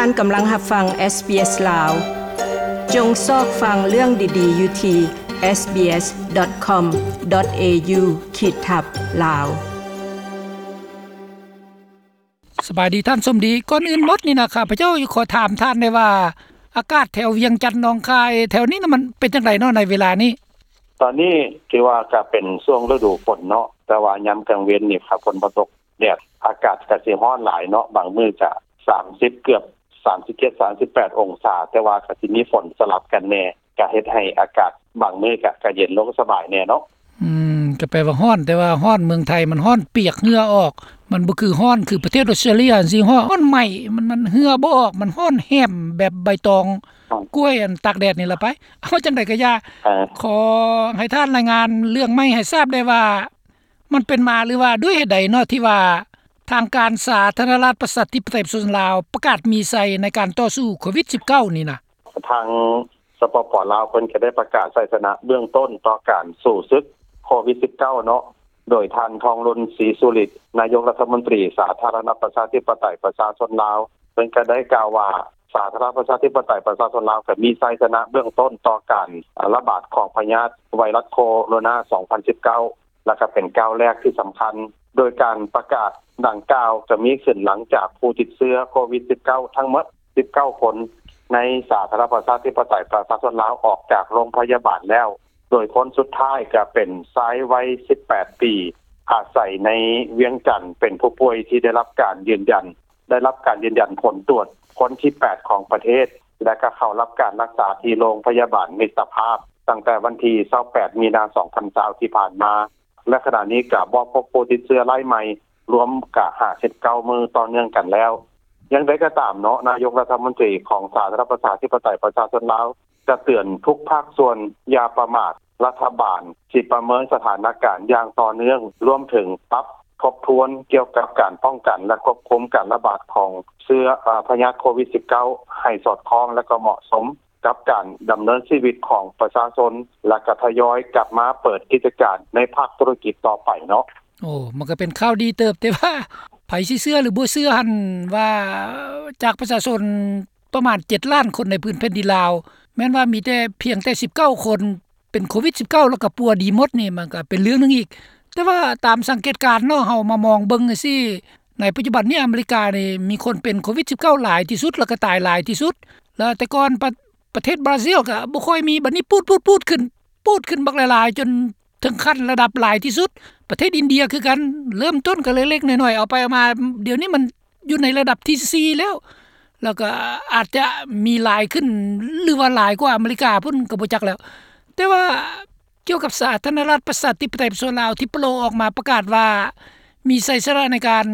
ທ່ານກຳລັງຮັບຟັງ SBS ລາວ. ຈົ່ງຊອກຟັງເລື່ອງດີໆຢູ່ທີ່ SBS.com.au ຂີດທັບ ລາວ. ສະບາຍດີທ່ານສົມດີ. ກ່ອນອື່ນໝົດນີ້ນະ ຂ້າພະເຈົ້າຂໍຖາມທ່ານແດ່ວ່າ ອາກາດແຖວວຽງຈັນ ໜອງຄາຍ ແຖວນີ້ນະ ມັນເປັນຈັ່ງໃດເນາະໃນເວລານີ້? ຕອນນີ້ຖືວ່າກະເປັນຊ່ວງລະດູຝົນເນາະ, ແຕ່ວ່າຍາມກາງເວັນນີ້ ຖ້າຝົນບໍ່ຕົກ ແດດ ອາກາດກະຊິຮ້ອນຫຼາຍເນາະ, ບາງມື້ກະສາມສິບ ເກືອບສາມສິບເຈັດ ສາມສິບແປດ ອົງສາ, ແຕ່ວ່າກະຊິມີຝົນສະຫຼັບກັນແດ່, ກະເຮັດໃຫ້ອາກາດບາງມື້ກະ ກະເຢັນລົງສະບາຍແດ່ເນາະ. ອືມ ກະແປວ່າຮ້ອນ, ແຕ່ວ່າຮ້ອນເມືອງໄທມັນຮ້ອນປຽກເຫື່ອອອກ, ມັນບໍ່ຄືຮ້ອນຄືປະເທດອອສເຕຣເລຍຈັ່ງຊີ້, ຮ້ອນ ຮ້ອນໄໝ້, ມັນ ມັນເຫື່ອບໍ່ອອກ, ມັນຮ້ອນແຮມແບບໃບຕອງ ອືມ ກ້ວຍ ອັນຕາກແດດນີ້ລະໄປ. ເອົາ ຈັ່ງໃດກະຢ່າ, ເອີ ຂໍໃຫ້ທ່ານລາຍງານເລື່ອງໃໝ່ໃຫ້ຊາບໄດ້ວ່າ ມັນເປັນມາ ຫຼືວ່າດ້ວຍເຫດໃດເນາະ ທີ່ວ່າທາງການສາທາລະນະລັດປະຊາທິປະໄຕປະຊາຊົນລາວ ປະກາດມີໄຊໃນການຕໍ່ສູ້ໂຄວິດສິບເກົ້ານີ້ນະ? ທາງ ສປປ ລາວ ເພິ່ນກະໄດ້ປະກາດໄຊຊະນະເບື້ອງຕົ້ນຕໍ່ການສູ້ສຶກໂຄວິດສິບເກົ້າເນາະ, ໂດຍທ່ານ ທອງລຸນ ສີສຸລິດ ນາຍົກລັດຖະມົນຕີສາທາລະນະລັດປະຊາທິປະໄຕປະຊາຊົນລາວ ເພິ່ນກະໄດ້ກ່າວວ່າ ສາທາລະນະລັດປະຊາທິປະໄຕປະຊາຊົນລາວ ກະມີໄຊຊະນະເບື້ອງຕົ້ນຕໍ່ການລະບາດຂອງພະຍາດໄວຣັສໂຄໂຣນາ ສອງພັນສິບເກົ້າ ແລະ ກະເປັນກ້າວແລກທີ່ສຳຄັນ, ໂດຍການປະກາດດັ່ງກ່າວກະມີຂຶ້ນຫຼັງຈາກຜູ້ຕິດເຊື້ອໂຄວິດສິບເກົ້າທັງໝົດສິບເກົ້າຄົນ ໃນສາທາລະນະລັດປະຊາທິປະໄຕປະຊາຊົນລາວອອກຈາກໂຮງພະຍາບານແລ້ວ, ໂດຍຄົນສຸດທ້າຍກະເປັນຊາຍໄວສິບແປດປີ ອາໄສໃນວຽງຈັນ ເປັນຜູ້ປ່ວຍທີ່ໄດ້ຮັບການຢືນຢັນ ໄດ້ຮັບການຢືນຢັນຜົນຕວດຄົນທີແປດຂອງປະເທດ ແລະ ກະເຂົ້າຮັບການຮັກສາທີ່ໂຮງພະຍາບານມິດຕະພາບ ຕັ້ງແຕ່ວັນທີຊາວແປດ ມີນາ ສອງພັນຊາວ ທີ່ຜ່ານມາ ແລະ ຂະນະນີ້ກະບໍ່ພົບຜູ້ຕິດເຊື້ອລາຍໃໝ່ ລວມກະຫ້າສິບເກົ້າມື້ຕໍ່ເນື່ອງກັນແລ້ວ. ຢ່າງໃດກະຕາມເນາະ, ນາຍົກລັດຖະມົນຕີຂອງສາທາລະນະລັດປະຊາທິປະໄຕປະຊາຊົນລາວ ກະເຕືອນທຸກພາກສ່ວນຢ່າປະໝາດ, ລັດຖະບານຊິປະເມີນສະຖານະການຢ່າງຕໍ່ເນື່ອງ, ລວມເຖິງປັບທົບທວນກ່ຽວກັບການປ້ອງກັນ ແລະ ຄວບຄຸມການລະບາດຂອງເຊື້ອ ອາ ພະຍາດໂຄວິດສິບເກົ້າ ໃຫ້ສອດຄ່ອງ ແລະ ກະເໝາະສົມກັບການດຳເນີນຊີວິດຂອງປະຊາຊົນ ແລະ ກະທະຍອຍກັບມາເປີດກິດຈະການໃນພາກທຸລະກິດຕໍ່ໄປເນາະ. ໂອ້ ມັນກະເປັນຂ່າວດີເຕີບ, ແຕ່ວ່າໃຜຊິເຊື່ອ ຫຼື ບໍ່ເຊື່ອຫັ້ນ ວ່າຈາກປະຊາຊົນ ປະມານເຈັດລ້ານຄົນໃນພື້ນແຜ່ນດິນລາວ ແມ່ນວ່າມີແຕ່ ພຽງແຕ່ສິບເກົ້າຄົນເປັນໂຄວິດສິບເກົ້າ ແລ້ວກະປົວດີໝົດນີ້ ມັນກະເປັນເລື່ອງໜຶ່ງອີກ. ແຕ່ວ່າຕາມສັງເກດການເນາະ ເຮົາມາມອງເບິ່ງຈັ່ງຊີ້ ໃນປັດຈຸບັນນີ້ອາເມລິການີ້ມີຄົນເປັນໂຄວິດສິບເກົ້າຫຼາຍທີ່ສຸດ ແລ້ວກະຕາຍຫຼາຍທີ່ສຸດ. ແລ້ວແຕ່ກ່ອນປະ ປະເທດບຣາຊິລກະບໍ່ຄ່ອຍມີ, ບັດນີ້ປູດໆໆ ຂຶ້ນ ປູດຂຶ້ນບັກຫຼາຍໆ ຈົນເຖິງຂັ້ນລະດັບຫຼາຍທີ່ສຸດ. ປະເທດອິນເດຍຄືກັນ ເລີ່ມຕົ້ນກະເລັກໆນ້ອຍໆ ເອົາໄປເອົາມາ ດຽວນີ້ມັນຢູ່ໃນລະດັບທີສີ່ແລ້ວ ແລ້ວກະອາດຈະມີຫຼາຍຂຶ້ນ ຫຼືວ່າຫຼາຍກວ່າອາເມລິກາພຸ້ນກະບໍ່ຈັກແລ້ວ. ແຕ່ວ່າກ່ຽວກັບສາທາລະນະລັດປະຊາທິປະໄຕປະຊາຊົນລາວ ທີ່ໂປລອອກມາປະກາດວ່າມີໄຊຊະນະໃນການ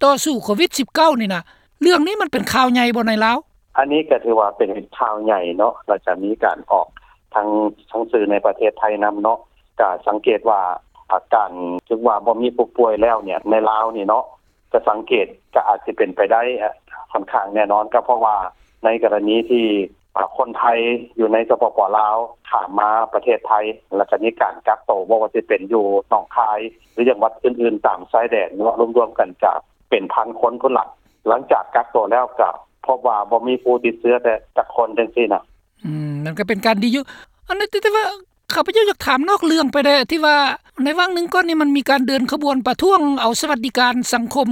ຕໍ່ສູ້ໂຄວິດສິບເກົ້ານີ້ນະ ເລື່ອງນີ້ມັນເປັນຂ່າວໃຫຍ່ບໍ່ໃນລາວ? ອັນນີ້ກະຖືວ່າເປັນຂ່າວໃຫຍ່ເນາະ ແລ້ວກະມີການອອກທາງ ທາງສື່ໃນປະເທດໄທນຳເນາະ ກະສັງເກດວ່າ ອາ ການຖືວ່າບໍ່ມີຜູ້ປ່ວຍແລ້ວເນຍ ໃນລາວນີ້ເນາະ ກະສັງເກດກະອາດຊິເປັນໄປໄດ້ ອາ ຂ້ອນຂ້າງແນ່ນອນ ກະເພາະວ່າໃນກໍລະນີທີ່ ອາ ຄົນໄທຢູ່ໃນ ສປປ ລາວ ຂ້າມມາປະເທດໄທ ແລ້ວກະມີການກັກໂຕ ບໍ່ວ່າຊິເປັນຢູ່ໜອງຄາຍ ຫຼື ຈັງຫວັດອື່ນໆຕາມຊາຍແດນເນາະ ລວມໆກັນກະເປັນພັນຄົນພຸ້ນລະ. ຫຼັງຈາກກັກໂຕແລ້ວກະພົບວ່າບໍ່ມີຜູ້ຕິດເຊື້ອແຕ່ຈັກຄົນຈັ່ງຊີ້ນະ. ອືມ ນັ້ນກະເປັນການດີຢູ່. ອັນນັ້ນ ແຕ່ ແຕ່ວ່າ ຂ້າພະເຈົ້າຢາກຖາມນອກເລື່ອງໄປແດ່ ທີ່ວ່າໃນຫວ່າງໜຶ່ງກ່ອນນີ້ ມັນມີການເດີນຂະບວນປະທ້ວງເອົາສະຫວັດດີການສັງຄົມ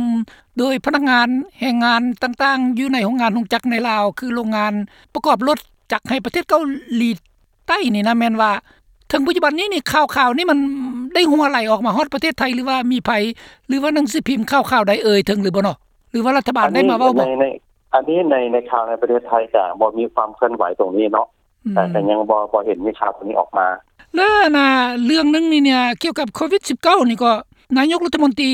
ໂດຍພະນັກງານແຮງງານຕ່າງໆ ຢູ່ໃນໂຮງງານໂຮງຈັກໃນລາວ ຄືໂຮງງານປະກອບລົດຈັກໃຫ້ປະເທດເກົາຫຼີໃຕ້ນີ້ນະ ແມ່ນວ່າເຖິງປັດຈຸບັນນີ້ນີ້ ຂ່າວໆນີ້ມັນໄດ້ຮົ່ວໄຫຼອອກມາຮອດປະເທດໄທ ຫຼືວ່າມີໃຜ ຫຼືວ່າໜັງສືພິມຂ່າວໆໃດເອີ່ຍເຖິງຫຼືບໍ່ເນາະ ຫຼືວ່າລັດຖະບານໄດ້ມາເວົ້າບໍ່? ອັນນີ້ໃນ ອັນນີ້ໃນ ໃນຂ່າວໃນປະເທດໄທກະບໍ່ມີຄວາມເຄື່ອນໄຫວຕົງນີ້ເນາະ ອືມ ກະຍັງບໍ່ ບໍ່ເຫັນມີຂ່າວຕົງນີ້ອອກມາ. ແລະ ອັນນ່າ ເລື່ອງໜຶ່ງນີ້ເນຍ ກ່ຽວກັບໂຄວິດສິບເກົ້ານີ້ກໍ ນາຍົກລັດຖະມົນຕີ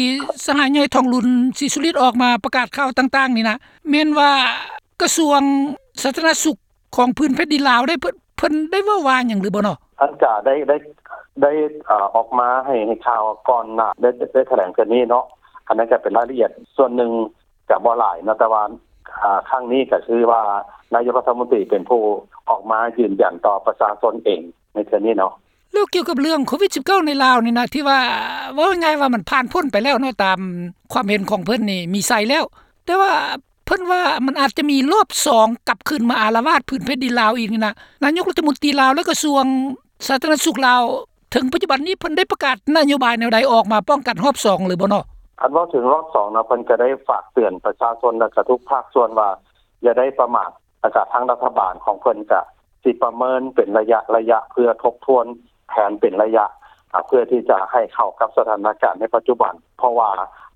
ສະຫາຍໃຫຍ່ ທອງລຸນ ສີສຸລິດ ອອກມາປະກາດຂ່າວຕ່າງໆນີ້ນະ ແມ່ນວ່າກະຊວງສາທາລະນະສຸກຂອງພື້ນແຜ່ນດິນລາວໄດ້ ເພິ່ນ ເພິ່ນໄດ້ເວົ້າວ່າຫຍັງຫຼືບໍ່ເນາະ? ອັນກະໄດ້ ໄດ້ ໄດ້ ເອີ ອອກມາໃຫ້ ໃຫ້ຂ່າວກ່ອນໜ້າ ໄດ້ ໄດ້ຖະແຫຼງເທື່ອນີ້ເນາະ ອັນນັ້ນກະເປັນລາຍລະອຽດສ່ວນໜຶ່ງ ກະບໍ່ຫຼາຍເນາະ ແຕ່ວ່າ ອາ ຄັ້ງນີ້ກະຄືວ່ານາຍົກລັດຖະມົນຕີເປັນຜູ້ອອກມາຢືນຢັນຕໍ່ປະຊາຊົນເອງໃນເທື່ອນີ້ເນາະ. ແລ້ວກ່ຽວກັບເລື່ອງໂຄວິດສິບເກົ້າໃນລາວນີ້ນະ ທີ່ວ່າ ເວົ້າງ່າຍໆວ່າມັນຜ່ານພົ້ນໄປແລ້ວເນາະ ຕາມຄວາມເຫັນຂອງເພິ່ນນີ້ມີໄຊແລ້ວ ແຕ່ວ່າ ເພິ່ນວ່າມັນອາດຈະມີລອບສອງກັບຄືນມາອາລະວາດພື້ນແຜ່ນດິນລາວອີກນີ້ນະ. ນາຍົກລັດຖະມົນຕີລາວ ແລະ ກະຊວງສາທາລະນະສຸກລາວ ເຖິງປັດຈຸບັນນີ້ເພິ່ນໄດ້ປະກາດນະໂຍບາຍແນວໃດອອກມາປ້ອງກັນຮອບສອງຫຼືບໍ່ເນາະ? ຄັນເວົ້າເຖິງຮອບສອງເນາະ ເພິ່ນກະໄດ້ຝາກເຕືອນປະຊາຊົນ ແລະ ກະທຸກພາກສ່ວນວ່າຢ່າໄດ້ປະໝາດ ແລະ ກະທາງລັດຖະບານຂອງເພິ່ນກະຊິປະເມີນເປັນໄລຍະໆ ເພື່ອທົບທວນແຜນເປັນໄລຍະ ອາ ເພື່ອທີ່ຈະໃຫ້ເຂົ້າກັບສະຖານະການໃນປັດຈຸບັນ ເພາະວ່າ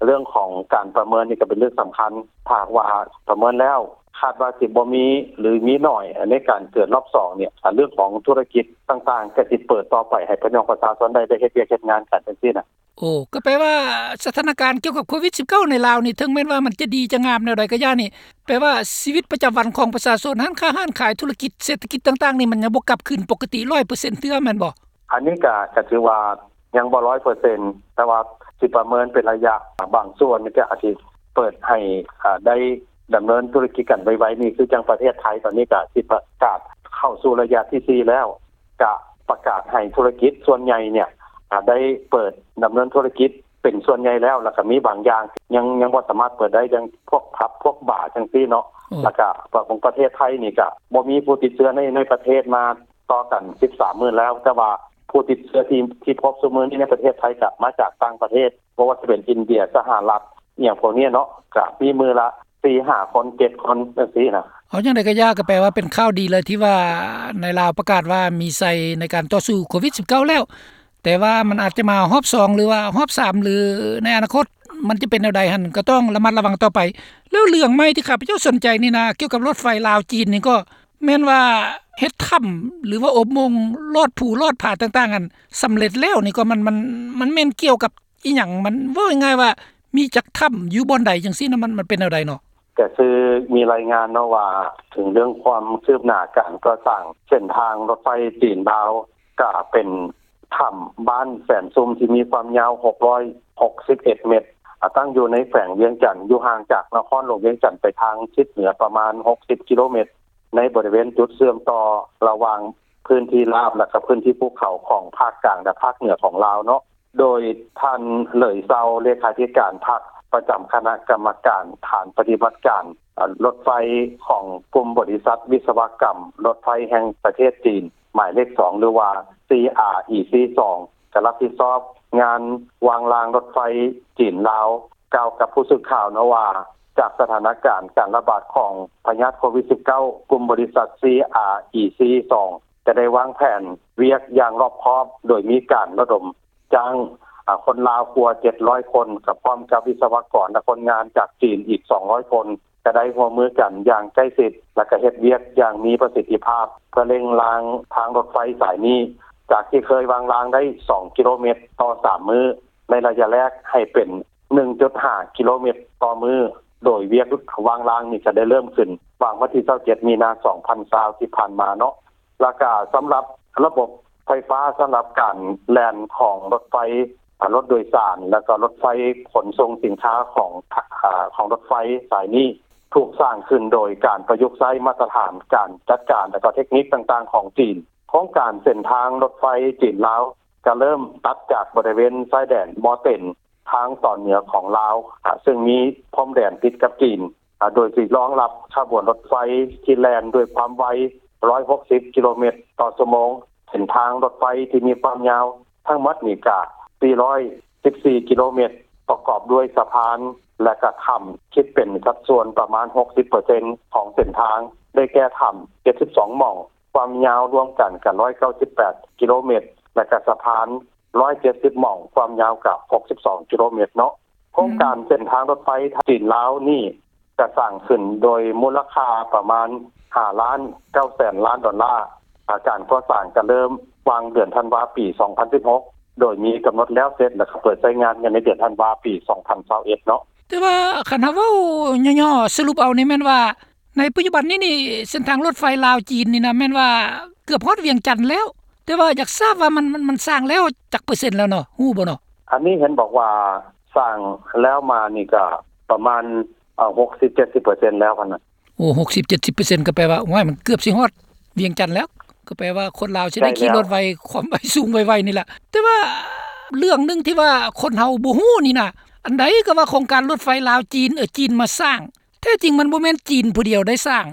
ເລື່ອງຂອງການປະເມີນນີ້ກະເປັນເລື່ອງສຳຄັນ. ຖ້າຫາກວ່າປະເມີນແລ້ວຄາດວ່າຊິບໍ່ມີ ຫຼື ມີໜ້ອຍໃນການເກີດຮອບສອງນີ້ ອາ ເລື່ອງຂອງທຸລະກິດຕ່າງໆ ກະຊິເປີດຕໍ່ໄປໃຫ້ພີ່ນ້ອງປະຊາຊົນໄດ້ ໄດ້ເຮັດວຽກເຮັດງານກັນຈັ່ງຊີ້ນະ. ໂອ້ ກໍແປວ່າສະຖານະການກ່ຽວກັບໂຄວິດສິບເກົ້າໃນລາວນີ້ ເຖິງແມ່ນວ່າມັນຈະດີຈະງາມແນວໃດກໍຢ່ານີ້ ແປວ່າຊີວິດປະຈຳວັນຂອງປະຊາຊົນ ຮ້ານຄ້າຮ້ານຂາຍ ທຸລະກິດເສດຖະກິດຕ່າງໆນີ້ ມັນຍັງບໍ່ກັບຄືນປົກກະຕິຮ້ອຍເປີເຊັນເທື່ອແມ່ນບໍ່? ອັນນີ້ກະ ກະຖືວ່າຍັງບໍ່ຮ້ອຍເປີເຊັນ ແຕ່ວ່າຊິປະເມີນເປັນໄລຍະ ບາງສ່ວນກະອາດຊິເປີດໃຫ້ ອາ ໄດ້ດຳເນີນທຸລະກິດກັນໄວໆນີ້ ຄືຈັ່ງປະເທດໄທຕອນນີ້ກະຊິປະກາດເຂົ້າສູ່ໄລຍະທີສີ່ແລ້ວ ກະປະກາດໃຫ້ທຸລະກິດສ່ວນໃຫຍ່ເນ່ຍ ອາ ໄດ້ເປີດດຳເນີນທຸລະກິດເປັນສ່ວນໃຫຍ່ແລ້ວ ແລ້ວກະມີບາງຢ່າງຍັງ ຍັງບໍ່ສາມາດເປີດໄດ້ ຢ່າງພວກຜັບພວກບາຈັ່ງຊີ້ເນາະ. ແລ້ວກະຂອງປະເທດໄທນີ້ກະບໍ່ມີຜູ້ຕິດເຊື້ອໃນ ໃນປະເທດມາຕໍ່ກັນສິບສາມມື້ແລ້ວ ແຕ່ວ່າຜູ້ຕິດເຊື້ອທີ່ ທີ່ພົບຊຸມື້ນີ້ໃນປະເທດໄທກະມາຈາກຕ່າງປະເທດ ບໍ່ວ່າຈະເປັນອິນເດຍ ສະຫະລັດ ອີ່ຫຍັງພວກນີ້ເນາະ ກະມີມື້ລະສີ່ຫ້າຄົນ ເຈັດຄົນຈັ່ງຊີ້ນະ. ເອົາຈັ່ງໃດກໍຢ່າ ກໍແປວ່າເປັນຂ່າວດີເລີຍທີ່ວ່າໃນລາວປະກາດວ່າມີໄຊໃນການຕໍ່ສູ້ໂຄວິດສິບເກົ້າແລ້ວ ແຕ່ວ່າມັນອາດຈະມາຮອບສອງ ຫຼືວ່າຮອບສາມ ຫຼືໃນອະນາຄົດມັນຈະເປັນແນວໃດຫັ້ນ ກໍຕ້ອງລະມັດລະວັງຕໍ່ໄປ. ແລ້ວເລື່ອງໃໝ່ທີ່ຂ້າພະເຈົ້າສົນໃຈນີ້ນະ ກ່ຽວກັບລົດໄຟລາວຈີນນີ້ ກໍແມ່ນວ່າເຮັດຖ້ຳ ຫຼືວ່າອົບໂມງລອດພູລອດຜາຕ່າງໆຫັ້ນສຳເລັດແລ້ວນີ້ ກໍມັນ ມັນ ມັນແມ່ນກ່ຽວກັບ ອີ່ຫຍັງ ມັນເວົ້າງ່າຍໆວ່າມີຈັກຖ້ຳຢູ່ບ່ອນໃດຈັ່ງຊີ້ນະ ມັນ ມັນເປັນແນວໃດເນາະ? ກະຄືມີລາຍງານເນາະວ່າ ເຖິງເລື່ອງຄວາມຄືບໜ້າການກໍ່ສ້າງເສັ້ນທາງລົດໄຟຈີນລາວ ກະເປັນຖ້ຳບ້ານແສນຊຸ່ມ ທີ່ມີຄວາມຍາວຫົກຮ້ອຍຫົກສິບເອັດເມັດ ອາ ຕັ້ງຢູ່ໃນແຂວງວຽງຈັນ ຢູ່ຫ່າງຈາກນະຄອນຫຼວງວຽງຈັນໄປທາງທິດເໜືອປະມານຫົກສິບກິໂລເມັດ ໃນບໍລິເວນຈຸດເຊື່ອມຕໍ່ລະຫວ່າງພື້ນທີ່ລາບ ແລະ ກະພື້ນທີ່ພູເຂົາຂອງພາກກາງ ແລະ ພາກເໜືອຂອງລາວເນາະ. ໂດຍທ່ານ ເຫຼີຍເຊົາ ເລຂາທິການພັກ ປະຈຳຄະນະກຳມະການຖານປະຕິບັດການ ອາ ລົດໄຟຂອງກຸ່ມບໍລິສັດວິສະວະກຳລົດໄຟແຫ່ງປະເທດຈີນ ໝາຍເລກສອງ ຫຼືວ່າ ຊີອາອີຊີສອງ ກະຮັບຜິດຊອບງານວາງລາງລົດໄຟຈີນລາວ ກ່າວກັບຜູ້ສື່ຂ່າວເນາະວ່າ ຈາກສະຖານະການການລະບາດຂອງພະຍາດໂຄວິດສິບເກົ້າ ກຸ່ມບໍລິສັດ ຊີອາອີຊີສອງ ຈະໄດ້ວາງແຜນວຽກຢ່າງລອບຄອບ ໂດຍມີການລະດົມ ຈ້າງ ອາ ຄົນລາວກວ່າເຈັດຮ້ອຍຄົນ ກະພ້ອມກັບວິສະວະກອນ ແລະ ຄົນງານຈາກຈີນອີກສອງຮ້ອຍຄົນ ຈະໄດ້ຮ່ວມມືກັນຢ່າງໃກ້ຊິດ ແລະ ກະເຮັດວຽກຢ່າງມີປະສິດທິພາບ ເພື່ອເລັ່ງລາງທາງລົດໄຟສາຍນີ້ ຈາກທີ່ເຄີຍວາງລາງໄດ້ສອງກິໂລເມັດຕໍ່ສາມມື້ ໃນໄລຍະແລກໃຫ້ເປັນໜຶ່ງຈຸດຫ້າກິໂລເມັດຕໍ່ມື້ ໂດຍວຽກວາງລາງນີ້ກະໄດ້ເລີ່ມຂຶ້ນຫວ່າງວັນທີຊາວເຈັດ ມີນາ ສອງພັນຊາວ ທີ່ຜ່ານມາເນາະ. ແລ້ວກະສຳລັບລະບົບໄຟຟ້າ ສຳລັບການແລ່ນຂອງລົດໄຟ ອາ ລົດໂດຍສານ ແລ້ວກໍລົດໄຟຂົນສົ່ງສິນຄ້າຂອງ ອາ ຂອງລົດໄຟສາຍນີ້ ຖືກສ້າງຂຶ້ນໂດຍການປະຍຸກໃຊ້ມາດຕະຖານການຈັດການ ແລ້ວກໍເທັກນິກຕ່າງໆຂອງຈີນ. ໂຄງການເສັ້ນທາງລົດໄຟຈີນລາວ ຈະເລີ່ມຕັດຈາກບໍລິເວນຊາຍແດນມໍເຕັນ ທາງຕອນເໜືອຂອງລາວ ອາ ເຊິ່ງມີພົມແດນຕິດກັບຈີນ ອາ ໂດຍຊິຮອງຮັບຂະບວນລົດໄຟທີ່ແລ່ນດ້ວຍຄວາມໄວ ຮ້ອຍຫົກສິບກິໂລເມັດຕໍ່ຊົ່ວໂມງ. ເສັ້ນທາງລົດໄຟທີ່ມີຄວາມຍາວທັງໝົດນີ້ກະສີ່ຮ້ອຍສິບສີ່ກິໂລເມັດ ປະກອບດ້ວຍສະພານ ແລະ ກະຖ້ຳ ຄິດເປັນສັດສ່ວນປະມານຫົກສິບເປີເຊັນຂອງເສັ້ນທາງ ໄດ້ແກ່ຖ້ຳເຈັດສິບສອງໝ່ອງ ຄວາມຍາວລວມກັນກະຮ້ອຍເກົ້າສິບແປດກິໂລເມັດ ແລະ ກະສະພານ ຮ້ອຍເຈັດສິບໝ່ອງ ຄວາມຍາວກະຫົກສິບສອງກິໂລເມັດເນາະ. ໂຄງການເສັ້ນທາງລົດໄຟຈີນລາວນີ້ ຈະສ້າງຂຶ້ນໂດຍມູນລະຄ່າປະມານຫ້າລ້ານເກົ້າແສນລ້ານດອນລາ. ອາ ການກໍ່ສ້າງກະເລີ່ມຫວ່າງເດືອນທັນວາ ປີສອງພັນສິບຫົກ ໂດຍມີກຳນົດແລ້ວເສັດ ແລະ ກະເປີດໃຊ້ງານກັນໃນເດືອນທັນວາ ປີສອງພັນຊາວເອັດເນາະ. ແຕ່ວ່າຄັນເຮົາເວົ້າຫຍໍ້ໆສະຫຼຸບເອົານີ້ແມ່ນວ່າ ໃນປັດຈຸບັນນີ້ນີ້ ເສັ້ນທາງລົດໄຟລາວຈີນນີ້ນະ ແມ່ນວ່າເກືອບຮອດວຽງຈັນແລ້ວ ແຕ່ວ່າຢາກຊາບວ່າມັນ ມັນ ມັນສ້າງແລ້ວຈັກເປີເຊັນແລ້ວເນາະ ຮູ້ບໍ່ເນາະ? ອັນນີ້ເຫັນບອກວ່າສ້າງແລ້ວມານີ້ກະປະມານ ເອີ ຫົກສິບເຈັດສິບເປີເຊັນແລ້ວຫັ້ນນະ. ໂອ້ ຫົກສິບເຈັດສິບເປີເຊັນ ກໍແປວ່າ ໂອ້ຍ ມັນເກືອບຊິຮອດວຽງຈັນແລ້ວ ກໍແປວ່າຄົນລາວຊິໄດ້ຂີ່ລົດໄວ ຄວາມໄວສູງໄວໆນີ້ລະ. ແຕ່ວ່າເລື່ອງໜຶ່ງທີ່ວ່າຄົນເຮົາບໍ່ຮູ້ນີ້ນະ ອັນໃດກໍວ່າໂຄງການລົດໄຟລາວຈີນ ເອີ ຈີນມາສ້າງ ແທ້ຈິງມັນບໍ່ແມ່ນຈີນຜູ້ດຽວໄດ້ສ້າງ.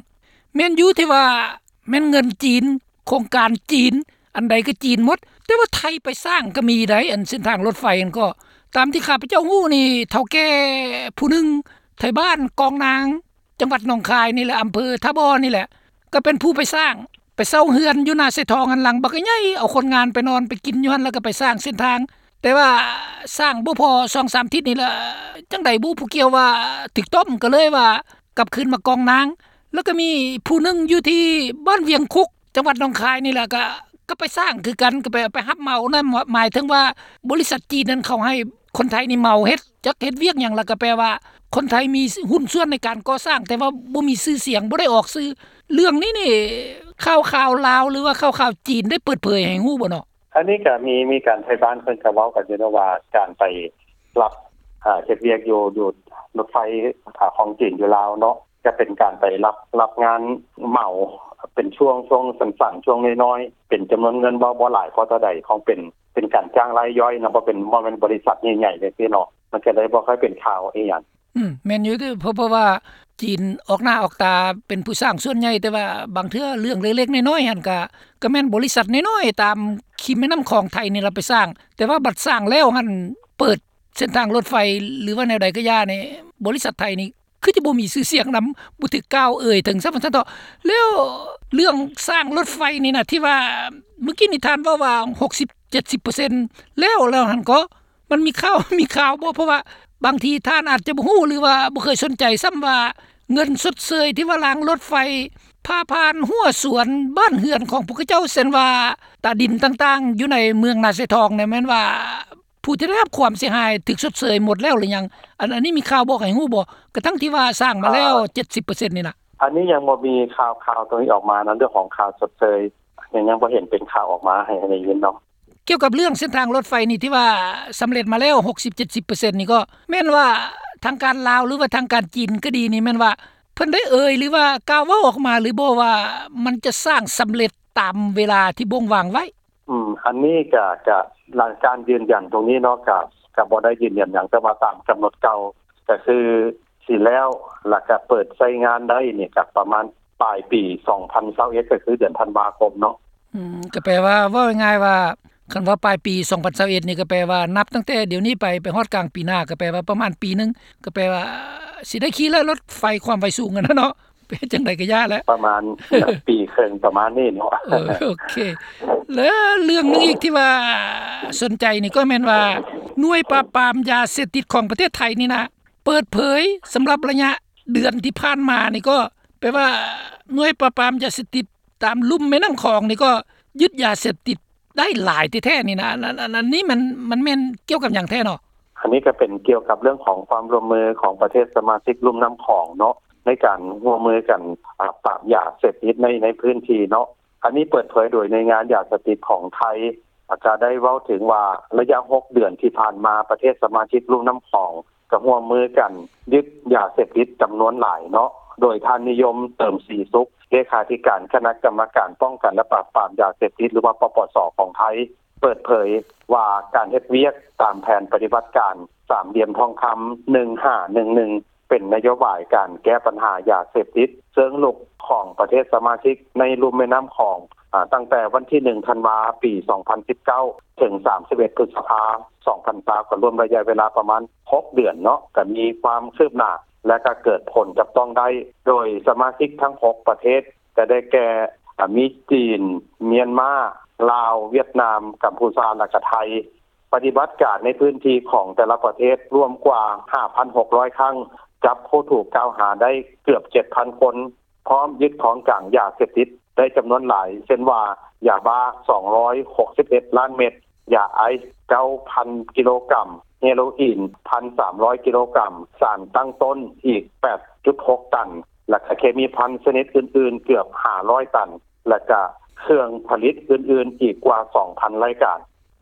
ແມ່ນຢູ່ທີ່ວ່າແມ່ນເງິນຈີນ, ໂຄງການຈີນ, ອັນໃດກໍຈີນໝົດ, ແຕ່ວ່າໄທໄປສ້າງກໍມີໄດ໋ ອັນເສັ້ນທາງລົດໄຟຫັ້ນກໍ. ຕາມທີ່ຂ້າພະເຈົ້າຮູ້ນີ້ ເຖົ້າແກ່ຜູ້ໜຶ່ງ ໄທບ້ານກອງນາງ ຈັງຫວັດໜອງຄາຍນີ້ແຫຼະ, ອຳເພີທ່າບໍ່ນີ້ແຫຼະ ກໍເປັນຜູ້ໄປສ້າງ, ໄປເຊົ່າເຮືອນຢູ່ນາຊາຍທອງຫັ້ນ ຫຼັງບັກໃຫຍ່, ເອົາຄົນງານໄປນອນໄປກິນຢູ່ຫັ້ນ ແລ້ວກໍໄປສ້າງເສັ້ນທາງ. ແຕ່ວ່າສ້າງບໍ່ພໍສອງສາມທິດນີ້ລະ ຈັ່ງໃດບໍ່ຮູ້ ຜູ້ກ່ຽວວ່າຖືກຕ້ອມ ກໍເລີຍວ່າກັບຄືນມາກອງນາງ. ແລ້ວກໍມີຜູ້ໜຶ່ງຢູ່ທີ່ບ້ານວຽງຄຸກ ຈັງຫວັດໜອງຄາຍນີ້ແຫຼະ ກໍ ກໍໄປສ້າງຄືກັນ, ກໍໄປ ໄປຮັບເໝົານຳ. ໝາຍເຖິງວ່າບໍລິສັດຈີນນັ້ນເຂົາໃຫ້ຄົນໄທນີ້ເໝົາເຮັດ, ຈັກເຮັດວຽກຫຍັງ ແລ້ວກໍແປວ່າຄົນໄທມີຫຸ້ນສ່ວນໃນການກໍ່ສ້າງ ແຕ່ວ່າບໍ່ມີຊື່ສຽງ, ບໍ່ໄດ້ອອກຊື່. ເລື່ອງນີ້ນີ້ ຂ່າວໆລາວ ຫຼືວ່າຂ່າວໆຈີນໄດ້ເປີດເຜີຍໃຫ້ຮູ້ບໍ່ເນາະ? ອັນນີ້ກໍມີ ມີການ ໄທບ້ານເພິ່ນກໍເວົ້າກັນຢູ່ເນາະ ວ່າການໄປຮັບ ເຮັດວຽກຢູ່ ຢູ່ລົດໄຟ ອາ ຂອງຈີນຢູ່ລາວເນາະ, ຈະເປັນການໄປຮັບ ຮັບງານເໝົາເປັນຊ່ວງ ຊ່ວງສັ້ນໆ ຊ່ວງນ້ອຍໆ ເປັນຈຳນວນເງິນບໍ່ ບໍ່ຫຼາຍພໍເທົ່າໃດ, ຂອງເປັນ ເປັນການຈ້າງລາຍຍ່ອຍເນາະ, ບໍ່ເປັນ ບໍ່ແມ່ນບໍລິສັດໃຫຍ່ໆ ຈັ່ງຊີ້ເນາະ, ມັນກໍເລີຍບໍ່ຄ່ອຍເປັນຂ່າວອີ່ຫຍັງ. ອືມ ແມ່ນຢູ່ເດ ເພາະ ເພາະວ່າຈີນອອກໜ້າອອກຕາເປັນຜູ້ສ້າງສ່ວນໃຫຍ່, ແຕ່ວ່າບາງເທື່ອເລື່ອງເລັກໆນ້ອຍໆຫັ້ນ ກະ ກະແມ່ນບໍລິສັດນ້ອຍໆຕາມຄີມແມ່ນ້ຳຂອງໄທນີ້ລະໄປສ້າງ, ແຕ່ວ່າບັດສ້າງແລ້ວຫັ້ນ ເປີດເສັ້ນທາງລົດໄຟ ຫຼືວ່າແນວໃດກໍຢ່ານີ້ ບໍລິສັດໄທນີ້ ຄືຈະບໍ່ມີຊື່ສຽງນຳ, ບໍ່ຖືກກ່າວເອີ່ຍເຖິງຊ້ຳວ່າຊັ້ນເຖາະ. ແລ້ວເລື່ອງສ້າງລົດໄຟນີ້ນະ ທີ່ວ່າມື້ກີ້ນີ້ທ່ານເວົ້າວ່າຫົກສິບເຈັດສິບເປີເຊັນແລ້ວ ແລ້ວຫັ້ນກໍ ມັນມີຂ່າວ ມີຂ່າວບໍ່? ເພາະວ່າບາງທີທ່ານອາດຈະບໍ່ຮູ້ ຫຼືວ່າບໍ່ເຄີຍສົນໃຈຊ້ຳວ່າ ເງິນຊົດເຊີຍທີ່ວ່າລາງລົດໄຟຜ່າຜ່ານຮົ້ວສວນບ້ານເຮືອນຂອງພວກເຂົາເຈົ້າ ເຊັ່ນວ່າຕາດິນຕ່າງໆ ຢູ່ໃນເມືອງນາຊາຍທອງນີ້ ແມ່ນວ່າ ຜູ້ທີ່ໄດ້ຮັບຄວາມເສຍຫາຍຖືກຊົດເຊີຍໝົດແລ້ວຫຼືຍັງ? ອັນ ອັນນີ້ມີຂ່າວບອກໃຫ້ຮູ້ບໍ່? ກະທັ່ງທີ່ວ່າສ້າງມາແລ້ວ ອ່າ ເຈັດສິບເປີເຊັນນີ້ນະ. ອັນນີ້ຍັງບໍ່ມີຂ່າວ ຂ່າວຕົງນີ້ອອກມານະ, ເລື່ອງຂອງຄ່າຊົດເຊີຍ ຍັງ ຍັງບໍ່ເຫັນເປັນຂ່າວອອກມາໃຫ້ ໃຫ້ໄດ້ຍິນເນາະ. ກ່ຽວກັບເລື່ອງເສັ້ນທາງລົດໄຟນີ້ ທີ່ວ່າສຳເລັດມາແລ້ວ ຫົກສິບເຈັດສິບເປີເຊັນນີ້ ກໍແມ່ນວ່າທາງການລາວ ຫຼືວ່າທາງການຈີນກໍດີນີ້ ແມ່ນວ່າເພິ່ນໄດ້ເອີ່ຍ ຫຼືວ່າກ່າວເວົ້າອອກມາຫຼືບໍ່ ວ່າມັນຈະສ້າງສຳເລັດຕາມເວລາທີ່ບົ່ງວາງໄວ້? ອືມ ອັນນີ້ກະ ກະ ຫຼັງການຢືນຢັນຕົງນີ້ເນາະ ກະ ກະບໍ່ໄດ້ຢືນຢັນຫຍັງ, ແຕ່ວ່າຕາມກຳນົດເກົ່າກະຄືຊິແລ້ວ ແລ້ວກະເປີດໃຊ້ງານໄດ້ນີ້ກະປະມານປາຍປີສອງພັນຊາວເອັດ ກະຄືເດືອນທັນວາຄົມເນາະ. ອືມ ກະແປວ່າ ເວົ້າງ່າຍໆວ່າ ຄັນວ່າປາຍປີສອງພັນຊາວເອັດນີ້ ກະແປວ່ານັບຕັ້ງແຕ່ດຽວນີ້ໄປ ໄປຮອດກາງປີໜ້າ ກະແປວ່າປະມານປີໜຶ່ງ ກະແປວ່າຊິໄດ້ຂີ່ແລ້ວ ລົດໄຟຄວາມໄວສູງຫັ້ນນະເນາະ. ເປັນຈັ່ງໃດກໍຢ່າແຫຼະ ປະມານປີເຄິ່ງປະມານນີ້ເນາະ. ເອີ ໂອເຄ ແລະເລື່ອງໜຶ່ງອີກທີ່ວ່າສົນໃຈນີ້ກໍແມ່ນວ່າ ໜ່ວຍປາບປາມຢາເສບຕິດຂອງປະເທດໄທນີ້ນະ ເປີດເຜີຍສຳລັບໄລຍະເດືອນທີ່ຜ່ານມານີ້ ກໍແປວ່າໜ່ວຍປາບປາມຢາເສບຕິດຕາມລຸ່ມແມ່ນ້ຳຂອງນີ້ ກໍຍຶດຢາເສບຕິດ ໄດ້ຫຼາຍແທ້ໆນີ້ນະ. ອັນ ອັນ ອັນ ອັນນີ້ມັນ ມັນແມ່ນກ່ຽວກັບຫຍັງແທ້ເນາະ? ອັນນີ້ກໍເປັນກ່ຽວກັບເລື່ອງຂອງຄວາມຮ່ວມມືຂອງປະເທດສະມາຊິກລຸ່ມນ້ຳຂອງເນາະ ໃນການຮ່ວມມືກັນ ອາ ປາບຢາເສບຕິດໃນ ໃນພື້ນທີ່ເນາະ. ອັນນີ້ເປີດເຜີຍໂດຍໜ່ວຍງານຢາເສບຕິດຂອງໄທ ອາ ກໍໄດ້ເວົ້າເຖິງວ່າ ໄລຍະຫົກເດືອນທີ່ຜ່ານມາ ປະເທດສະມາຊິກລຸ່ມນ້ຳຂອງ ກໍຮ່ວມມືກັນຍຶດຢາເສບຕິດຈຳນວນຫຼາຍເນາະ, ໂດຍທ່ານນິຍົມ ເຕີມສີສຸກ ເລຂາທິການຄະນະກຳມະການປ້ອງກັນ ແລະ ປາບປາມຢາເສບຕິດ ຫຼືວ່າ ປປສ ຂອງໄທ ເປີດເຜີຍວ່າ ການເຮັດວຽກຕາມແຜນປະຕິບັດການສາມຫຼ່ຽມທອງຄຳ ໜຶ່ງຫ້າໜຶ່ງໜຶ່ງ ເປັນນະໂຍບາຍການແກ້ບັນຫາຢາເສບຕິດເຊີງລຸກຂອງປະເທດສະມາຊິກໃນລຸ່ມແມ່ນ້ຳຂອງ ອາ ຕັ້ງແຕ່ວັນທີໜຶ່ງ ທັນວາ ປີສອງພັນສິບເກົ້າ ເຖິງ ສາມສິບເອັດ ພຶດສະພາ ສອງພັນຊາວ ກໍລວມໄລຍະເວລາປະມານຫົກເດືອນເນາະ, ກໍມີຄວາມຄືບໜ້າ ແລະ ກໍເກີດຜົນຈັບຕ້ອງໄດ້ ໂດຍສະມາຊິກທັງຫົກປະເທດ ກໍໄດ້ແກ່ ອາ ມີຈີນ, ມຽນມາ, ລາວ, ຫວຽດນາມ, ກຳພູຊາ ແລະ ກໍໄທ. ປະຕິບັດການໃນພື້ນທີ່ຂອງແຕ່ລະປະເທດລວມກວ່າ ຫ້າພັນຫົກຮ້ອຍ ຄັ້ງ, ຈັບຜູ້ຖືກກ່າວຫາໄດ້ເກືອບ ເຈັດພັນ ຄົນ, ພ້ອມຍຶດຂອງກາງຢາເສບຕິດໄດ້ຈຳນວນຫຼາຍ ເຊັ່ນວ່າ ຢາບ້າ ສອງຮ້ອຍຫົກສິບເອັດ ລ້ານເມັດ, ຢາໄອສ໌ ເກົ້າພັນ ກິໂລກຣາມ, ເຮໂຣອີນ ໜຶ່ງພັນສາມຮ້ອຍ ກິໂລກຣາມ, ສານຕັ້ງຕົ້ນອີກ ແປດຈຸດຫົກ ຕັນ ແລະ ກໍເຄມີພັນຊະນິດອື່ນໆ ເກືອບ ຫ້າຮ້ອຍ ຕັນ ແລະ ກໍເຄື່ອງຜະລິດອື່ນໆ ອີກກວ່າ ສອງພັນ ລາຍການ.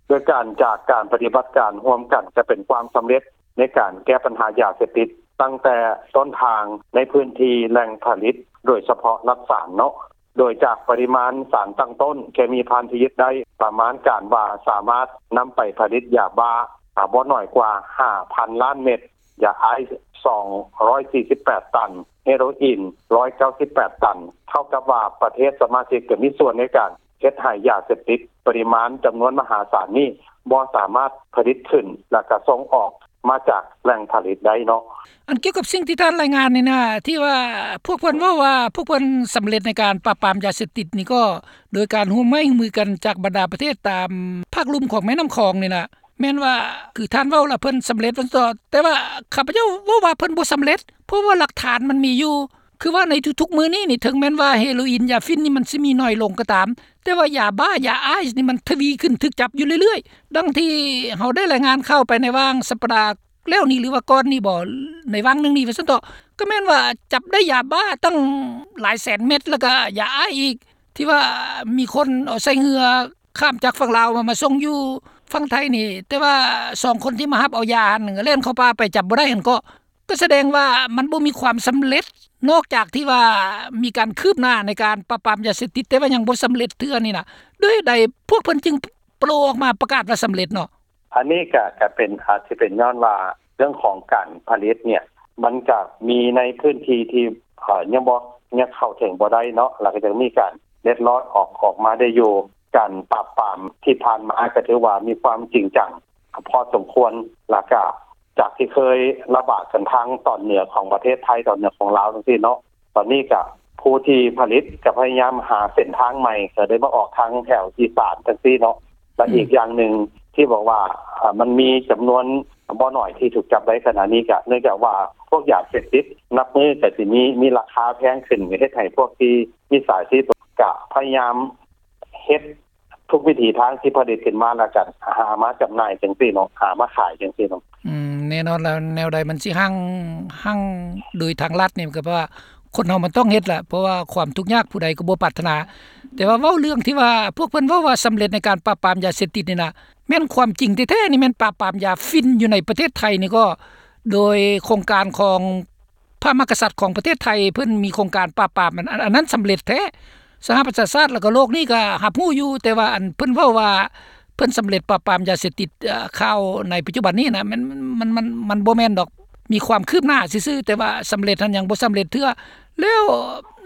ໂດຍການ ຈາກການປະຕິບັດການຮ່ວມກັນ ຈະເປັນຄວາມສຳເລັດໃນການແກ້ບັນຫາຢາເສບຕິດ ຕັ້ງແຕ່ຕົ້ນທາງໃນພື້ນທີ່ແຫຼ່ງຜະລິດ ໂດຍສະເພາະລັດສານເນາະ. ໂດຍຈາກປະລິມານສານຕັ້ງຕົ້ນເຄມີພັນທີ່ຍຶດໄດ້ ປະມານການວ່າສາມາດນຳໄປຜະລິດຢາບ້າ ອາ ບໍ່ໜ້ອຍກວ່າ ຫ້າພັນ ລ້ານເມັດ. ຢາໄອສ໌ສອງຮ້ອຍສີ່ສິບແປດຕັນ, ເຮໂຣອີນຮ້ອຍເກົ້າສິບແປດຕັນ. ເທົ່າກັບວ່າປະເທດສະມາຊິກກໍມີສ່ວນໃນການເຮັດໃຫ້ຢາເສບຕິດປະລິມານຈຳນວນມະຫາສານນີ້ບໍ່ສາມາດຜະລິດຂຶ້ນ ແລ້ວກໍສົ່ງອອກມາຈາກແຫຼ່ງຜະລິດໄດ້ເນາະ. ອັນກ່ຽວກັບສິ່ງທີ່ທ່ານລາຍງານນີ້ນະ ທີ່ວ່າພວກເພິ່ນເວົ້າວ່າພວກເພິ່ນສຳເລັດໃນການປາບປາມຢາເສບຕິດນີ້ກໍໂດຍການຮ່ວມໄມ້ຮ່ວມມືກັນຈາກບັນດາປະເທດຕາມພາກລຸ່ມຂອງແມ່ນ້ຳຂອງນີ້ນະ ແມ່ນວ່າ ຄືທ່ານເວົ້າລະເພິ່ນສຳເລັດວ່າຊັ້ນເຖາະ ແຕ່ວ່າຂ້າພະເຈົ້າເວົ້າວ່າເພິ່ນບໍ່ສຳເລັດ ເພາະວ່າຫຼັກຖານມັນມີຢູ່ ຄືວ່າໃນທຸກໆມື້ນີ້ນີ້ ເຖິງແມ່ນວ່າເຮໂຣອີນ ຢາຝິ່ນນີ້ມັນຊິມີໜ້ອຍລົງກໍຕາມ ແຕ່ວ່າຢາບ້າ ຢາໄອສ໌ນີ້ມັນທະວີຂຶ້ນ ຖືກຈັບຢູ່ເລື້ອຍໆ ດັ່ງທີ່ເຮົາໄດ້ລາຍງານຂ່າວໄປໃນຫວ່າງສັບປະດາແລ້ວນີ້ ຫຼືວ່າກ່ອນນີ້ບໍ ໃນຫວ່າງໜຶ່ງນີ້ວ່າຊັ້ນເຖາະ ກໍແມ່ນວ່າຈັບໄດ້ຢາບ້າຕັ້ງຫຼາຍແສນເມັດ ແລ້ວກໍຢາໄອສ໌ອີກ ທີ່ວ່າມີຄົນເອົາໃສ່ເຮືອ ຂ້າມຈາກຝັ່ງລາວມາ ມາສົ່ງຢູ່ຝັ່ງໄທນີ້ ແຕ່ວ່າສອງຄົນທີ່ມາຮັບເອົາຢາຫັ້ນ ແລ່ນເຂົ້າປ່າໄປ ຈັບບໍ່ໄດ້ຫັ້ນເກາະ ກໍສະແດງວ່າມັນບໍ່ມີຄວາມສຳເລັດ ນອກຈາກທີ່ວ່າມີການຄືບໜ້າໃນການປາບປາມຢາເສບຕິດ ແຕ່ວ່າຍັງບໍ່ສຳເລັດເທື່ອນີ້ນະ ດ້ວຍໃດພວກເພິ່ນຈຶ່ງໂຜ່ອອກມາປະກາດວ່າສຳເລັດເນາະ? ອັນນີ້ກະ ກະເປັນ ອາດຊິເປັນຍ້ອນວ່າເລື່ອງຂອງການຜະລິດເນ່ຍ ມັນກະມີໃນພື້ນທີ່ທີ່ ເອີ ຍັງບໍ່ ຍັງເຂົ້າເຖິງບໍ່ໄດ້ເນາະ ແລ້ວກໍຍັງມີການເລັດລອດອອກ ອອກມາໄດ້ຢູ່. ການປາບປາມທີ່ຜ່ານມາກໍຖືວ່າມີຄວາມຈິງຈັງພໍສົມຄວນ ແລ້ວກະຈາກທີ່ເຄີຍລະບາດກັນທາງຕອນເໜືອຂອງປະເທດໄທ ຕອນເໜືອຂອງລາວຈັ່ງຊີ້ເນາະ ຕອນນີ້ກະຜູ້ທີ່ຜະລິດກະພະຍາຍາມຫາເສັ້ນທາງໃໝ່ ກະໄດ້ມາອອກທາງແຖວອີສານຈັ່ງຊີ້ເນາະ ແລະ ອືມ ອີກຢ່າງໜຶ່ງທີ່ບອກວ່າ ເອີ ມັນມີຈຳນວນບໍ່ໜ້ອຍທີ່ຖືກຈັບໄດ້ຂະນະນີ້ ກະເນື່ອງຈາກວ່າພວກຢາເສບຕິດນັບມື້ກະຊິມີ ມີລາຄາແພງຂຶ້ນ ເຮັດໃຫ້ພວກທີ່ມິດສາຊີບກະພະຍາຍາມເຮັດທຸກວິຖີທາງທີ່ຜະລິດຂຶ້ນມາ ແລ້ວກະຫາມາຈຳໜ່າຍຈັ່ງຊີ້ເນາະ ຫາມາຂາຍຈັ່ງຊີ້ເນາະ. ອືມ ແນ່ນອນແລ້ວ ແນວໃດມັນຊິຮັ່ງ ຮັ່ງໂດຍທາງລັດນີ້ ກໍເພາະວ່າ ຄົນເຮົາມັນຕ້ອງເຮັດລະ ເພາະວ່າຄວາມທຸກຍາກຜູ້ໃດກໍບໍ່ປາດຖະໜາ. ແຕ່ວ່າເວົ້າເລື່ອງທີ່ວ່າ ພວກເພິ່ນເວົ້າວ່າສຳເລັດໃນການປາບປາມຢາເສບຕິດນີ້ນະ ແມ່ນຄວາມຈິງແທ້ໆນີ້ ແມ່ນປາບປາມຢາຝິ່ນຢູ່ໃນປະເທດໄທນີ້ກໍ ໂດຍໂຄງການຂອງພະມະຫາກະສັດຂອງປະເທດໄທ ເພິ່ນມີໂຄງການປາບປາມ ອັນ ອັນ ອັນນັ້ນສຳເລັດແທ້. ສະຫະປະຊາຊາດ ແລ້ວກໍໂລກນີ້ກໍຮັບຮູ້ຢູ່ ແຕ່ວ່າອັນເພິ່ນເວົ້າວ່າ ເພິ່ນສຳເລັດປາບປາມຢາເສບຕິດ ເອີ ຂ່າວໃນປັດຈຸບັນນີ້ນະ ມັນ ມັນ ມັນ ມັນບໍ່ແມ່ນດອກ ມີຄວາມຄືບໜ້າຊື່ໆ ແຕ່ວ່າສຳເລັດຫັ້ນຍັງບໍ່ສຳເລັດເທື່ອ. ແລ້ວ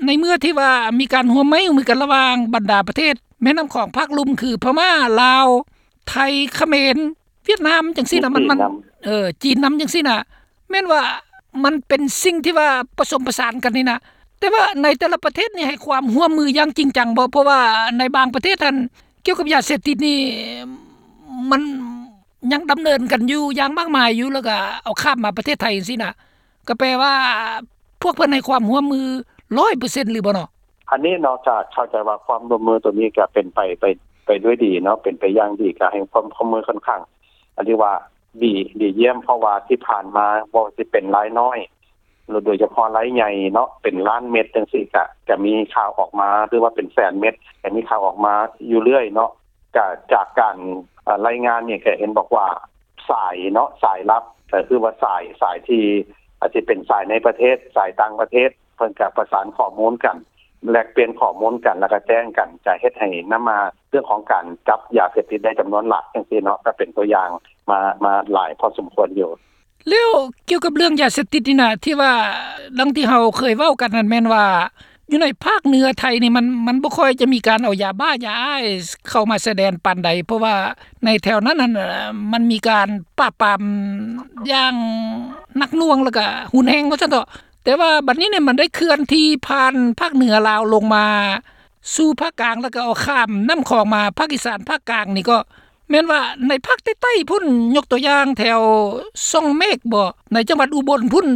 ໃນເມື່ອທີ່ວ່າມີການຮ່ວມໄມ້ຮ່ວມມືກັນລະຫວ່າງບັນດາປະເທດແມ່ນ້ຳຂອງພາກລຸ່ມ ຄືພະມ້າ ລາວ ໄທ ຂະເໝນ ຫວຽດນາມ ຈັ່ງຊີ້ນະ ມັນ ຈີນນຳ ມັນ ເອີ ຈີນນຳຈັ່ງຊີ້ນະ ແມ່ນວ່າມັນເປັນສິ່ງທີ່ວ່າປະສົມປະສານກັນນີ້ນະ ແຕ່ວ່າໃນແຕ່ລະປະເທດນີ້ໃຫ້ຄວາມຮ່ວມມືຢ່າງຈິງຈັງບໍ່? ເພາະວ່າໃນບາງປະເທດຫັ້ນ ກ່ຽວກັບຢາເສບຕິດນີ້ ມັນຍັງດຳເນີນກັນຢູ່ຢ່າງມາກມາຍຢູ່ ແລ້ວກໍເອົາຂ້າມມາປະເທດໄທຈັ່ງຊີ້ນະ ກໍແປວ່າພວກເພິ່ນໃຫ້ຄວາມຮ່ວມມືຮ້ອຍເປີເຊັນຫຼືບໍ່ເນາະ? ອັນນີ້ເນາະ ກໍເຂົ້າໃຈວ່າຄວາມຮ່ວມມືໂຕນີ້ກໍເປັນໄປ ໄປ ໄປດ້ວຍດີເນາະ ເປັນໄປຢ່າງດີ ກໍໃຫ້ຄວາມຮ່ວມມືຂ້ອນຂ້າງ ອັນທີ່ວ່າ ດີ ດີຢ້ຽມ ເພາະວ່າທີ່ຜ່ານມາບໍ່ວ່າຊິເປັນລາຍນ້ອຍ ໂດຍສະເພາະລາຍໃຫຍ່ເນາະ ເປັນລ້ານເມັດຈັ່ງຊີ້ ກະ ກະມີຂ່າວອອກມາ ຫຼືວ່າເປັນແສນເມັດ ກະມີຂ່າວອອກມາຢູ່ເລື້ອຍເນາະ. ກະຈາກການ ເອີ ລາຍງານນີ້ ກະເຫັນບອກວ່າສາຍເນາະ ສາຍລັບ ກະຄືວ່າສາຍ ສາຍທີ່ອາດຊິເປັນສາຍໃນປະເທດ ສາຍຕ່າງປະເທດ ເພິ່ນກະປະສານຂໍ້ມູນກັນ ແລກປ່ຽນຂໍ້ມູນກັນ ແລ້ວກະແຈ້ງກັນ ກະເຮັດໃຫ້ນຳມາເລື່ອງຂອງການຈັບຢາເສບຕິດໄດ້ຈຳນວນຫຼາຍຈັ່ງຊີ້ເນາະ ກະເປັນຕົວຢ່າງມາ ມາຫຼາຍພໍສົມຄວນຢູ່. ແລ້ວກ່ຽວກັບເລື່ອງຢາເສບຕິດນີ້ນະ ທີ່ວ່າດັ່ງທີ່ເຮົາເຄີຍເວົ້າກັນນັ້ນ ແມ່ນວ່າຢູ່ໃນພາກເໜືອໄທນີ້ ມັນ ມັນບໍ່ຄ່ອຍຈະມີການເອົາຢາບ້າ ຢາໄອສ໌ເຂົ້າມາຊາຍແດນປານໃດ ເພາະວ່າໃນແຖວນັ້ນຫັ້ນ ມັນມີການປາບປາມຢ່າງໜັກໜ່ວງ ແລ້ວກະຮຸນແຮງວ່າຊັ້ນເຖາະ. ແຕ່ວ່າບັດນີ້ນີ້ ມັນໄດ້ເຄື່ອນທີ່ຜ່ານພາກເໜືອລາວລົງມາສູ່ພາກກາງ ແລ້ວກໍເອົາຂ້າມນ້ຳຂອງມາພາກອີສານພາກກາງນີ້ ກໍແມ່ນວ່າໃນພາກໃຕ້ໆພຸ້ນ ຍົກຕົວຢ່າງແຖວຊ່ອງເມກບໍ ໃນຈັງຫວັດອຸບົນພຸ້ນ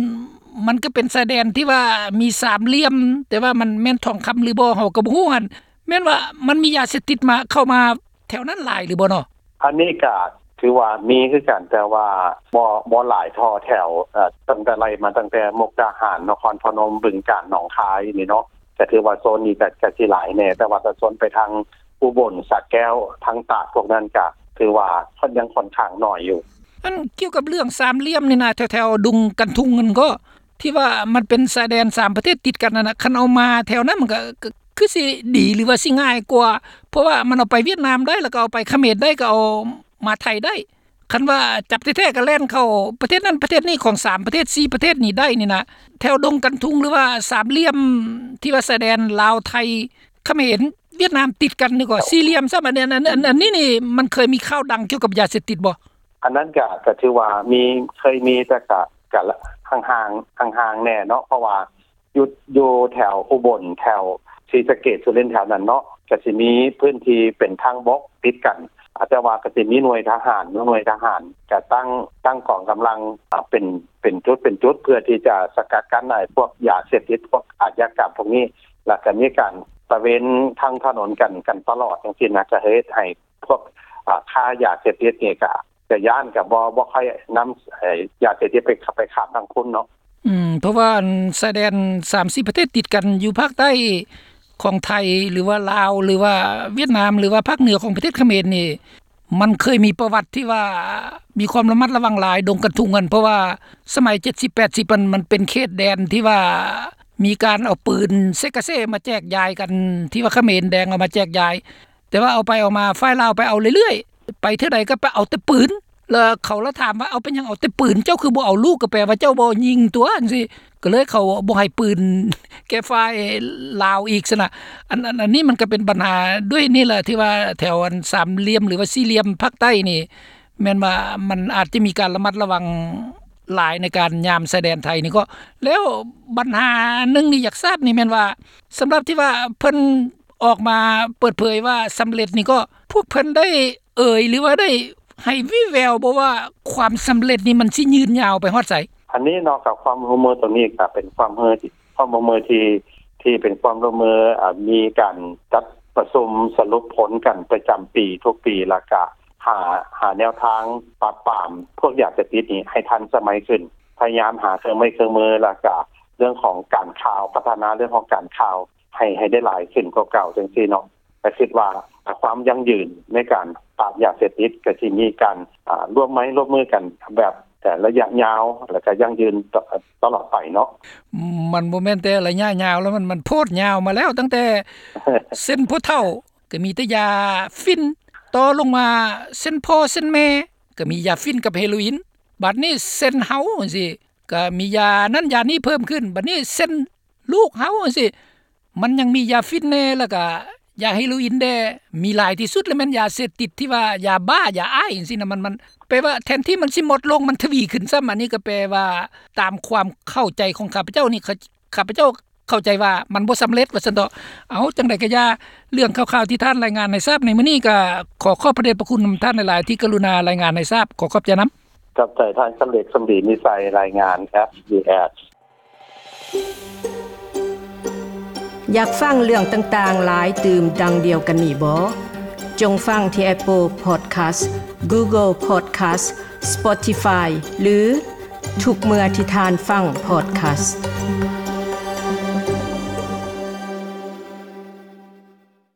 ມັນກໍເປັນຊາຍແດນທີ່ວ່າມີສາມຫຼ່ຽມ ແຕ່ວ່າມັນແມ່ນທອງຄຳຫຼືບໍ່ ເຮົາກໍບໍ່ຮູ້ຫັ້ນ ແມ່ນວ່າມັນມີຢາເສບຕິດມາ ເຂົ້າມາ ແຖວນັ້ນຫຼາຍຫຼືບໍ່ເນາະ? ອັນນີ້ກະຖືວ່າມີຄືກັນ ແຕ່ວ່າບໍ່ ບໍ່ຫຼາຍທໍ່ແຖວ ເອີ ຕັ້ງແຕ່ໄລ່ມາຕັ້ງແຕ່ມຸກດາຫານ ນະຄອນພະນົມ ບຶງການ ໜອງຄາຍນີ້ເນາະ ກະຖືວ່າໂຊນນີ້ກະ ກະຊິຫຼາຍແດ່ ແຕ່ວ່າຖ້າໂຊນໄປທາງອຸບົນ ສະແກ້ວ ທາງຕາກ ພວກນັ້ນກະຖືວ່າຍັງຂ້ອນຂ້າງໜ້ອຍຢູ່. ອັນກ່ຽວກັບເລື່ອງສາມຫຼ່ຽມນີ້ນະ ແຖວໆດົງກັນທຸງນັ້ນກໍ ທີ່ວ່າມັນເປັນຊາຍແດນສາມປະເທດຕິດກັນນັ້ນນະ ຄັນເອົາມາແຖວນັ້ນ ມັນກໍ ກໍຄືຊິດີ ຫຼືວ່າຊິງ່າຍກວ່າ ເພາະວ່າມັນເອົາໄປຫວຽດນາມໄດ້ ແລ້ວກໍເອົາໄປຂະເໝນໄດ້ ກໍເອົາມາໄທໄດ້ ຄັນວ່າຈັບແທ້ໆ ກໍແລ່ນເຂົ້າປະເທດນັ້ນປະເທດນີ້ ຂອງສາມປະເທດ ສີ່ປະເທດນີ້ໄດ້ນີ້ນະ ແຖວດົງກັນທຸງ ຫຼືວ່າສາມຫຼ່ຽມທີ່ວ່າຊາຍແດນລາວ ໄທ ຂະເໝນ ຫວຽດນາມ ຕິດກັນນີ້ກໍສີ່ຫຼ່ຽມຊ້ຳ. ອັນນີ້ ອັນ ອັນ ອັນນີ້ນີ້ ມັນເຄີຍມີຂ່າວດັງກ່ຽວກັບຢາເສບຕິດບໍ່? ອັນນັ້ນກະ ກະຖືວ່າມີ ເຄີຍມີ ແຕ່ກະ ກະຫ່າງໆ ຫ່າງໆແດ່ເນາະ ເພາະວ່າ ຢູ່ ຢູ່ແຖວອຸບົນ ແຖວສີສະເກດ ສຸລິນ ແຖວນັ້ນເນາະ ກະຊິມີພື້ນທີ່ເປັນທາງບົກຕິດກັນ ອາ ແຕ່ວ່າກະຊິມີໜ່ວຍທະຫານ ໜ່ວຍທະຫານກະຕັ້ງ ຕັ້ງກອງກຳລັງ ອາ ເປັນ ເປັນຈຸດ ເປັນຈຸດ ເພື່ອທີ່ຈະສະກັດກັ້ນ ອາ ພວກຢາເສບຕິດ ພວກອາຊະຍາກຳພວກນີ້ ແລ້ວກະມີການຕະເວນທາງຖະໜົນກັນ ກັນຕະຫຼອດຈັ່ງຊີ້ນະ ກະເຮັດໃຫ້ພວກ ອາ ຄ້າຢາເສບຕິດນີ້ກະ ກະຢ້ານ ກະບໍ່ ບໍ່ຄ່ອຍນຳ ເອີ ຢາເສບຕິດໄປ ໄປຂ້າມທາງພຸ້ນເນາະ. ອືມ ເພາະວ່າອັນຊາຍແດນສາມສີ່ປະເທດຕິດກັນຢູ່ພາກໃຕ້ຂອງໄທ ຫຼືວ່າລາວ ຫຼືວ່າຫວຽດນາມ ຫຼືວ່າພາກເໜືອຂອງປະເທດຂະເໝນນີ້ ມັນເຄີຍມີປະຫວັດທີ່ວ່າມີຄວາມລະມັດລະວັງຫຼາຍ ດົງກັນທຸງຫັ້ນ ເພາະວ່າສະໄໝເຈັດສິບ ແປດສິບ ມັນ ມັນເປັນເຂດແດນທີ່ວ່າມີການເອົາປືນເຊກາເຊມາແຈກຢາຍກັນ ທີ່ວ່າຂະເໝນແດງເອົາມາແຈກຢາຍ ແຕ່ວ່າເອົາໄປເອົາມາ ຝ່າຍລາວໄປເອົາເລື້ອຍໆ ໄປເທື່ອໃດກໍໄປເອົາແຕ່ປືນ ແລ້ວເຂົາລະຖາມວ່າ ເອົາເປັນຫຍັງເອົາແຕ່ປືນ ເຈົ້າຄືບໍ່ເອົາລູກ ກໍແປວ່າເຈົ້າບໍ່ຍິງຕົວ ຈັ່ງຊີ້ ກໍເລີຍເຂົາບໍ່ໃຫ້ປືນແກ່ຝ່າຍລາວອີກຊັ້ນນະ. ອັນ ອັນ ອັນນີ້ມັນກໍເປັນບັນຫາດ້ວຍນີ້ແຫຼະ ທີ່ວ່າແຖວອັນສາມຫຼ່ຽມ ຫຼືວ່າສີ່ຫຼ່ຽມພາກໃຕ້ນີ້ ແມ່ນວ່າມັນອາດຈະມີການລະມັດລະວັງຫຼາຍໃນການຍາມຊາຍແດນໄທນີ້ກໍ. ແລ້ວບັນຫາໜຶ່ງນີ້ຢາກຊາບນີ້ແມ່ນວ່າ ສຳລັບທີ່ວ່າເພິ່ນອອກມາເປີດເຜີຍວ່າສຳເລັດນີ້ກໍ ພວກເພິ່ນໄດ້ເອີຍ ຫຼືວ່າໄດ້ໃຫ້ວີ່ແວວບໍ່ວ່າ ຄວາມສຳເລັດນີ້ມັນຊິຍືນຍາວໄປຮອດໃສ? ອັນນີ້ເນາະ ກະຄວາມຮ່ວມມືໂຕນີ້ກະເປັນຄວາມຮ່ວມມືທີ່ ຄວາມຮ່ວມມືທີ່ ທີ່ເປັນຄວາມຮ່ວມມື ອາ ມີການຈັດປະຊຸມສະຫຼຸບຜົນກັນປະຈຳປີທຸກປີ ແລ້ວກະຫາ ຫາແນວທາງປາບປາມພວກຢາເສບຕິດນີ້ໃຫ້ທັນສະໄໝຂຶ້ນ ພະຍາຍາມຫາເຄື່ອງໄມ້ເຄື່ອງມື ແລ້ວກະເລື່ອງຂອງການຂ່າວ ພັດທະນາເລື່ອງຂອງການຂ່າວ ໃຫ້ ໃຫ້ໄດ້ຫຼາຍຂຶ້ນກວ່າເກົ່າຈັ່ງຊີ້ເນາະ. ກະຄິດວ່າຄວາມຢັ້ງຢືນໃນການປາບຢາເສບຕິດ ກະຊິມີການ ອາ ຮ່ວມໄມ້ຮ່ວມມືກັນແບບ ແຕ່ໄລຍະຍາວ ແລ້ວກະຢັ້ງຢືນຕະ ຕະຫຼອດໄປເນາະ. ມັນບໍ່ແມ່ນແຕ່ໄລຍະຍາວແລ້ວ ມັນ ມັນໂພດຍາວມາແລ້ວ ຕັ້ງແຕ່ເຊັນພໍ່ເຖົ້າ ກະມີແຕ່ຢາຝິ່ນ ຕໍ່ລົງມາເຊັນພໍ່ເຊັນແມ່ ກະມີຢາຝິ່ນກັບເຮໂຣອິນ ບາດນີ້ເຊັນເຮົາຈັ່ງຊີ້ ກະມີຢານັ້ນຢານີ້ເພີ່ມຂຶ້ນ ບາດນີ້ເຊັນລູກເຮົາຈັ່ງຊີ້ ມັນຍັງມີຢາຝິ່ນແດ່ ແລ້ວກະຢາເຮໂຣອິນແດ່ ມີຫຼາຍທີ່ສຸດລະແມ່ນຢາເສບຕິດທີ່ວ່າຢາບ້າ ຢາອ້າຍຈັ່ງຊີ້ນະ ມັນ ມັນແປວ່າແທນທີ່ມັນຊິໝົດລົງ ມັນທະວີຂຶ້ນຊ້ຳ. ອັນນີ້ກໍແປວ່າຕາມຄວາມເຂົ້າໃຈຂອງຂ້າພະເຈົ້ານີ້ ຂ້າພະເຈົ້າເຂົ້າໃຈວ່າມັນບໍ່ສຳເລັດວ່າຊັ້ນເຖາະ. ເອົາ ຈັ່ງໃດກໍຢ່າ ເລື່ອງຂ່າວໆທີ່ທ່ານລາຍງານໃຫ້ຊາບໃນມື້ນີ້ ກໍຂໍຂອບພະເດດພະຄຸນນຳທ່ານຫຼາຍໆ ທີ່ກະລຸນາລາຍງານໃຫ້ຊາບ ຂໍຂອບໃຈນຳ. ຂອບໃຈທ່ານ ຄຳເລັກ ສົມດີນິໄສ ລາຍງານ ເອັສບີເອັສ. ຢາກຟັງເລື່ອງຕ່າງໆຫຼາຍຕື່ມດັ່ງດຽວກັນນີ້ບໍ? ຈົ່ງຟັງທີ່ Apple Podcast, Google Podcast, Spotify ຫຼື ທຸກເມື່ອທີ່ທ່ານຟັງ Podcast.